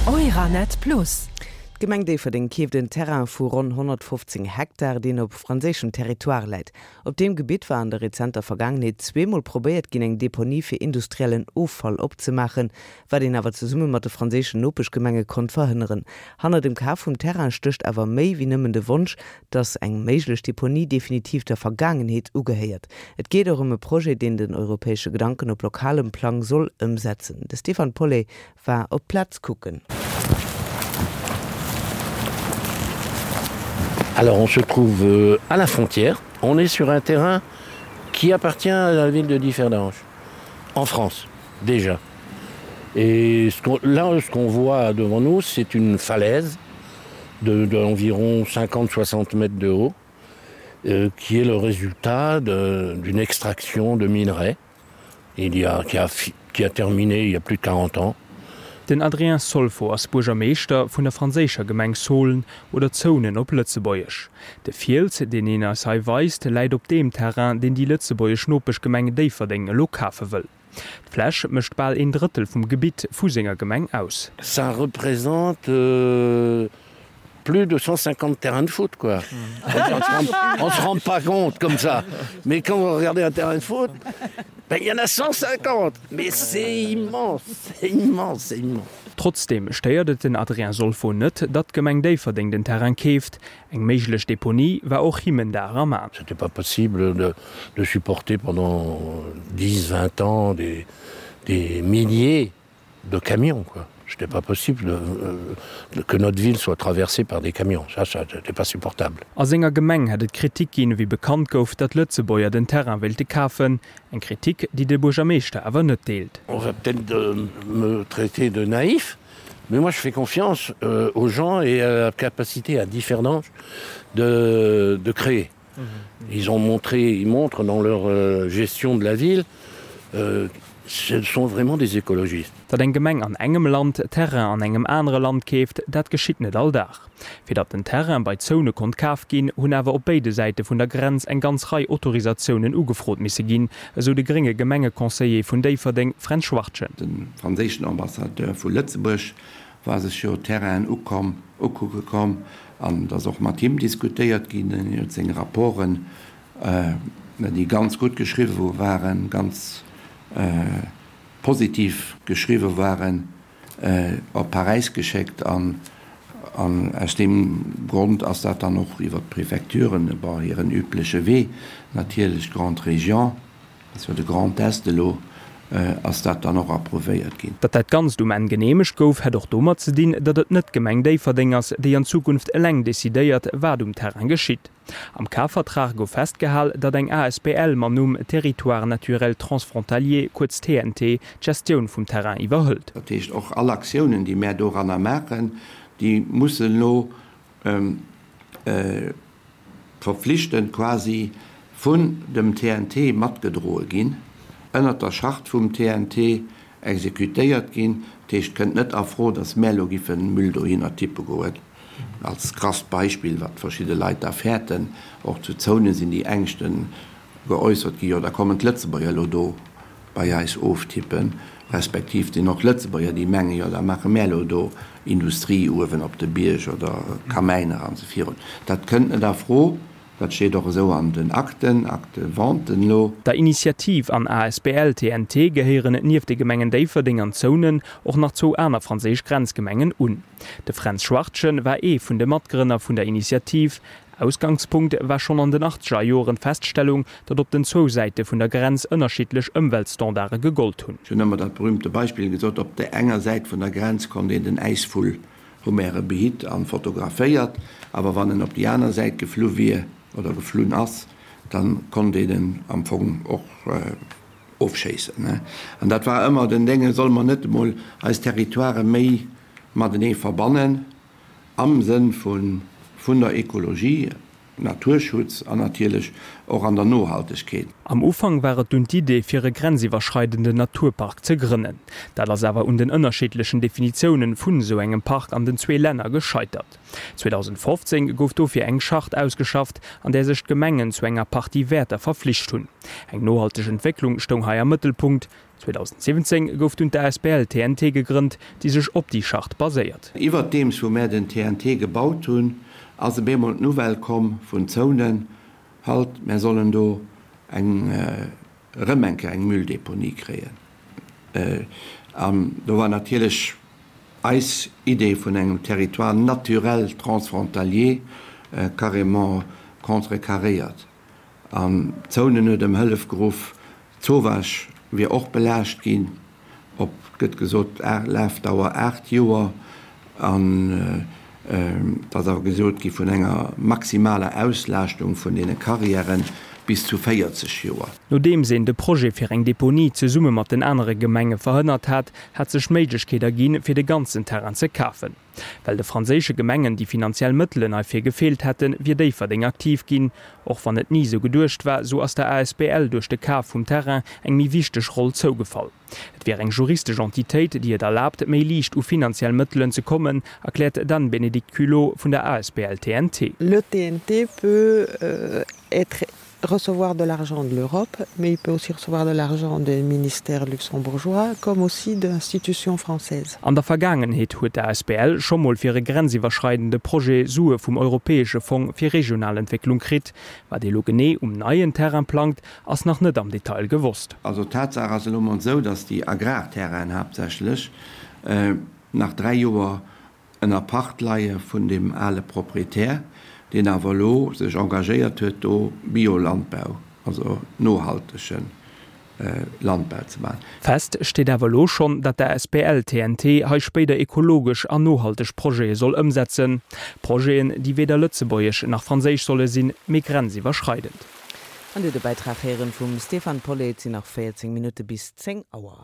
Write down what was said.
Euranet Plus. D'Gemeng Déifferdeng keeft en Terrain vu ronn 115 Hektar, deen op franséischem Territoire läit. Op deem Gebitt war an der rezenter Vergaangenheet zweemol probéiert ginn, eng Deponie fir industriellen Offall opzemaachen, wat een awer zesumme mat de franséischen Nopeschgemenge konnt verhënneren. Hanner dem Kaf vum Terrain stécht awer méi wéi nëmmen de Wonsch, dass eng méiglech Deponie definitiv der Vergaangenheet ugehéiert. Et geet och ëm e Projet, deen den europäesche Gedanken op lokalem Plang soll ëmsetzen. De Stéphane Paulet war op d'Plaz kucken. Alors on se trouve à la frontière, on est sur un terrain qui appartient à la ville de Differdange, en France déjà. Et ce qu'on, là ce qu'on voit devant nous, c'est une falaise d'environ 50-60 mètres de haut, euh, qui est le résultat d'une extraction de minerais il y a, qui, a, qui a terminé il y a plus de 40 ans. Den Adrien Solfo ass Buergermeeschter vun der franséischer Gemeng Saulnes, oder Zounen op Lëtzebuergesch. De Fiels, deen een eis hei weist, läit op deem Terrain, deen déi lëtzebuergesch Nopeschgemeng Déifferdeng elo kafe wëll. D'Fläch mécht bal een Drëttel vum Gebitt vu senger Gemeng aus. Ça représente plus de 150 terrains de foot quoi. On se rend pas compte comme ça. Mais quand vous regardez un terrain de foot, ben il y en a 150. Mais c'est immense, c'est immense, c'est immense. Trotzdeem stéiert et den Adrien Solfo net, datt d'Gemeng Déifferdeng den Terrain keeft. Eng méiglech Deponie war och him en Dar am A. C'était pas possible de, de supporter pendant 10, 20 ans des, des milliers de camions quoi. C'était pas possible de, euh, que notre ville soit traversée par des camions. Ça, ça n'était pas supportable. A senger Gemeng hätt et Kritik ginn, wéi bekannt gouf, datt Lëtzebuerger den Terrain wéilte kafen. Eng Kritik, déi de Buergermeeschter awer net deelt. On va peut-être euh, me traiter de naïf, mais moi je fais confiance euh, aux gens et à la capacité à Differdange de, de créer. Mmh. Ils ont montré, ils montrent dans leur euh, gestion de la ville, euh, ce sont vraiment des écologistes. Datt eng Gemeng an engem Land Terrain an engem anere Land keeft, dat geschitt net all Dag. Fir datt den Terrain bei Zone konnt kaf ginn, hunn awer op béide Säite vun der Grenz eng ganz Rei Autorisatiounen ugefrot misse ginn, esou de grénge Gemengeconseiller vun Déifferdeng, Fränz Schwartgen. De franséischen Ambassadeur vu Lëtzebuerg war sech jo d'Terrainen ukomm, ukucke komm an et ass och mat him diskutéiert ginn. En huet seng Rapporten, déi ganz gutt geschriwwe waren, ganz positiv geschriwwe waren, op Paräis geschéckt an aus deem Grond ass dat dann och iwwer d'Prefecturen, bon, hiren übleche Wee natierlech, Grande Région, ass jo de Grand Est elo, ass dat dann och approuvéiert ginn. Datt dat Ganzt um Enn geneemegt gouf, hätt och domat ze dinn, datt et net d'Gemeng Déifferdeng ass, déi an Zukunft eleng decidéiert, wat um Terrain geschitt. Am Kafvertrag gouf festgehal, datt eng asbl mam Numm Territoire naturel transfrontalier, kuerz TNT, d'Gestioun vum Terrain iwwerhëlt. Dat heescht, och all Aktiounen, déi mär doranner maachen, déi mussen elo verpflichtend quasi vun dem TNT matgedroe ginn, ënnert der Charte vum TNT exekutéiert ginn. Dat heescht, et kënnt net a Fro, datt mär elo giffe Müll dohinner tippe goen, als krasst Beispill, wat verschidde Leit da fäerten. Och zu Zounen sinn déi Ängschte geäussert ginn, jo da kommen d'Lëtzebuerger elo do bei eis oftippen, respektiv et sinn och Lëtzebuerger, déi mengen, jo da maache mär elo do Industrie uewen op de Bierg oder Kamäiner an esou virun. Dat kënnt net a Fro, dat steet och esou an den Akten, Acte de vente elo. Der Initiativ an asbl TNT gehéieren nieft de Gemengen Déifferdeng an Zounen och nach zwou aner franséisch Grenzgemengen un. De Fränz Schwartgen war ee vun de Matgrënner vun der Initiativ. Ausgangspunkt war schonn an den achtzeger Joren d'Feststellung, datt op den zwou Säite vun der Grenz ënnerschiddlech Ëmweltstandarde gegollt hunn. Ech hunn ëmmer dat berühmte Beispill gesot, Op där enger Säit vun der Grenz konnt een den Äisvull, hu mär e behitt an fotograféiert, awer wann en op déi aner Säit geflu wier oder geflunn ass, da konnt een en am Fong och ofschéissen. An dat war ëmmer den Dénge, Solle mer net emol eis Territoirë méi matenee verbannen? Am Sënn vun der Ekologie, Naturschutz an natierlech och an der Nohaltegkeet. Am Ufank war et dunn d'Idee, fir e grenziwwerschreidenden Naturpark ze grënnen. Dat ass awer un den ënnerschiddlechen Definitiounen vun esou engem Park an den zwee Länner gescheitert. 2015 gouf dofir eng Charte ausgeschafft, an där sech d'Gemengen zu enger Partie Wäerter verflicht hunn. Eng nohalteg Entwécklung stoung hei am Mëttelpunkt. 2017 gouf dunn d'ASBL TNT gegrënnt, déi sech op déi Charte baséiert. Iwwerdeems wou mär den TNT gebaut hunn, ass op eemol d'Nouvelle komm vun Zounen, halt, mär sollen do eng, erëm eng Kéier eng Mülldeponie kréien. An do war natierlech eis Idee vun engem Territoire naturel transfrontalier carrément contrecarréiert. An Zounen huet ëm Hëllef geruff. D'Zowaasch wier och belaascht ginn, op, gëtt gesot, Lafdauer 8 Joer. An et ass awer gesot gi vun enger maximaler Auslaaschtung vun deene Carrièren bis zu 40 Joer. Nodeems een de Projet fir eng Deponie zesumme mat den anere Gemenge verhënnert hat, hat sech d'Méiglechkeet erginn, fir de ganzen Terrain ze kafen. Well de franséische Gemengen déi finanziell Mëttelen heifir gefeelt hätten, wier Déifferdeng aktiv ginn. Och wann et ni sou geduecht war, sou ass der asbl duerch de Kaf vum Terrain eng méi wichteg Roll zougefall. Et wier eng juristesch Entitéit, déi et erlaabt, méi liicht u finanziell Mëttelen ze kommen, erkläert d'Anne-Bénédicte Culot vun der asbl TNT. Le TNT peut être recevoir de l'argent de l'Europe, mais il peut aussi recevoir de l'argent des ministères luxembourgeois comme aussi d'institutions françaises. An der Vergaangenheet huet d'ASBL scho mol fir e grenziwwerschreidende Projet Sue vum Europäesche Fong fir regional Entwécklung kritt. Wat ee lo genee um neien Terrain plangt, ass nach net am Detail gewosst. Also d'Tatsaach ass elo mol esou, datt déi Agrarterrainen haaptsächlech nach 3 Joer ënner Pacht leie vun deem ale Proprietär, deen awer elo sech engagéiert huet, do Biolandbau, also nohaltege Landbau ze maachen. Fest steet awer elo schonn, datt d'ASBL TNT hei spéider ekologesch an nohalteg Projete soll ëmsetzen. Projeten, déi weder lëtzebuergesch nach franséisch solle sinn, mee grenziwwerschreidend. An Dir de Bäitrag héieren vum Stéphane Paulet. Et sinn nach 14 Minutte bis 10 Auer.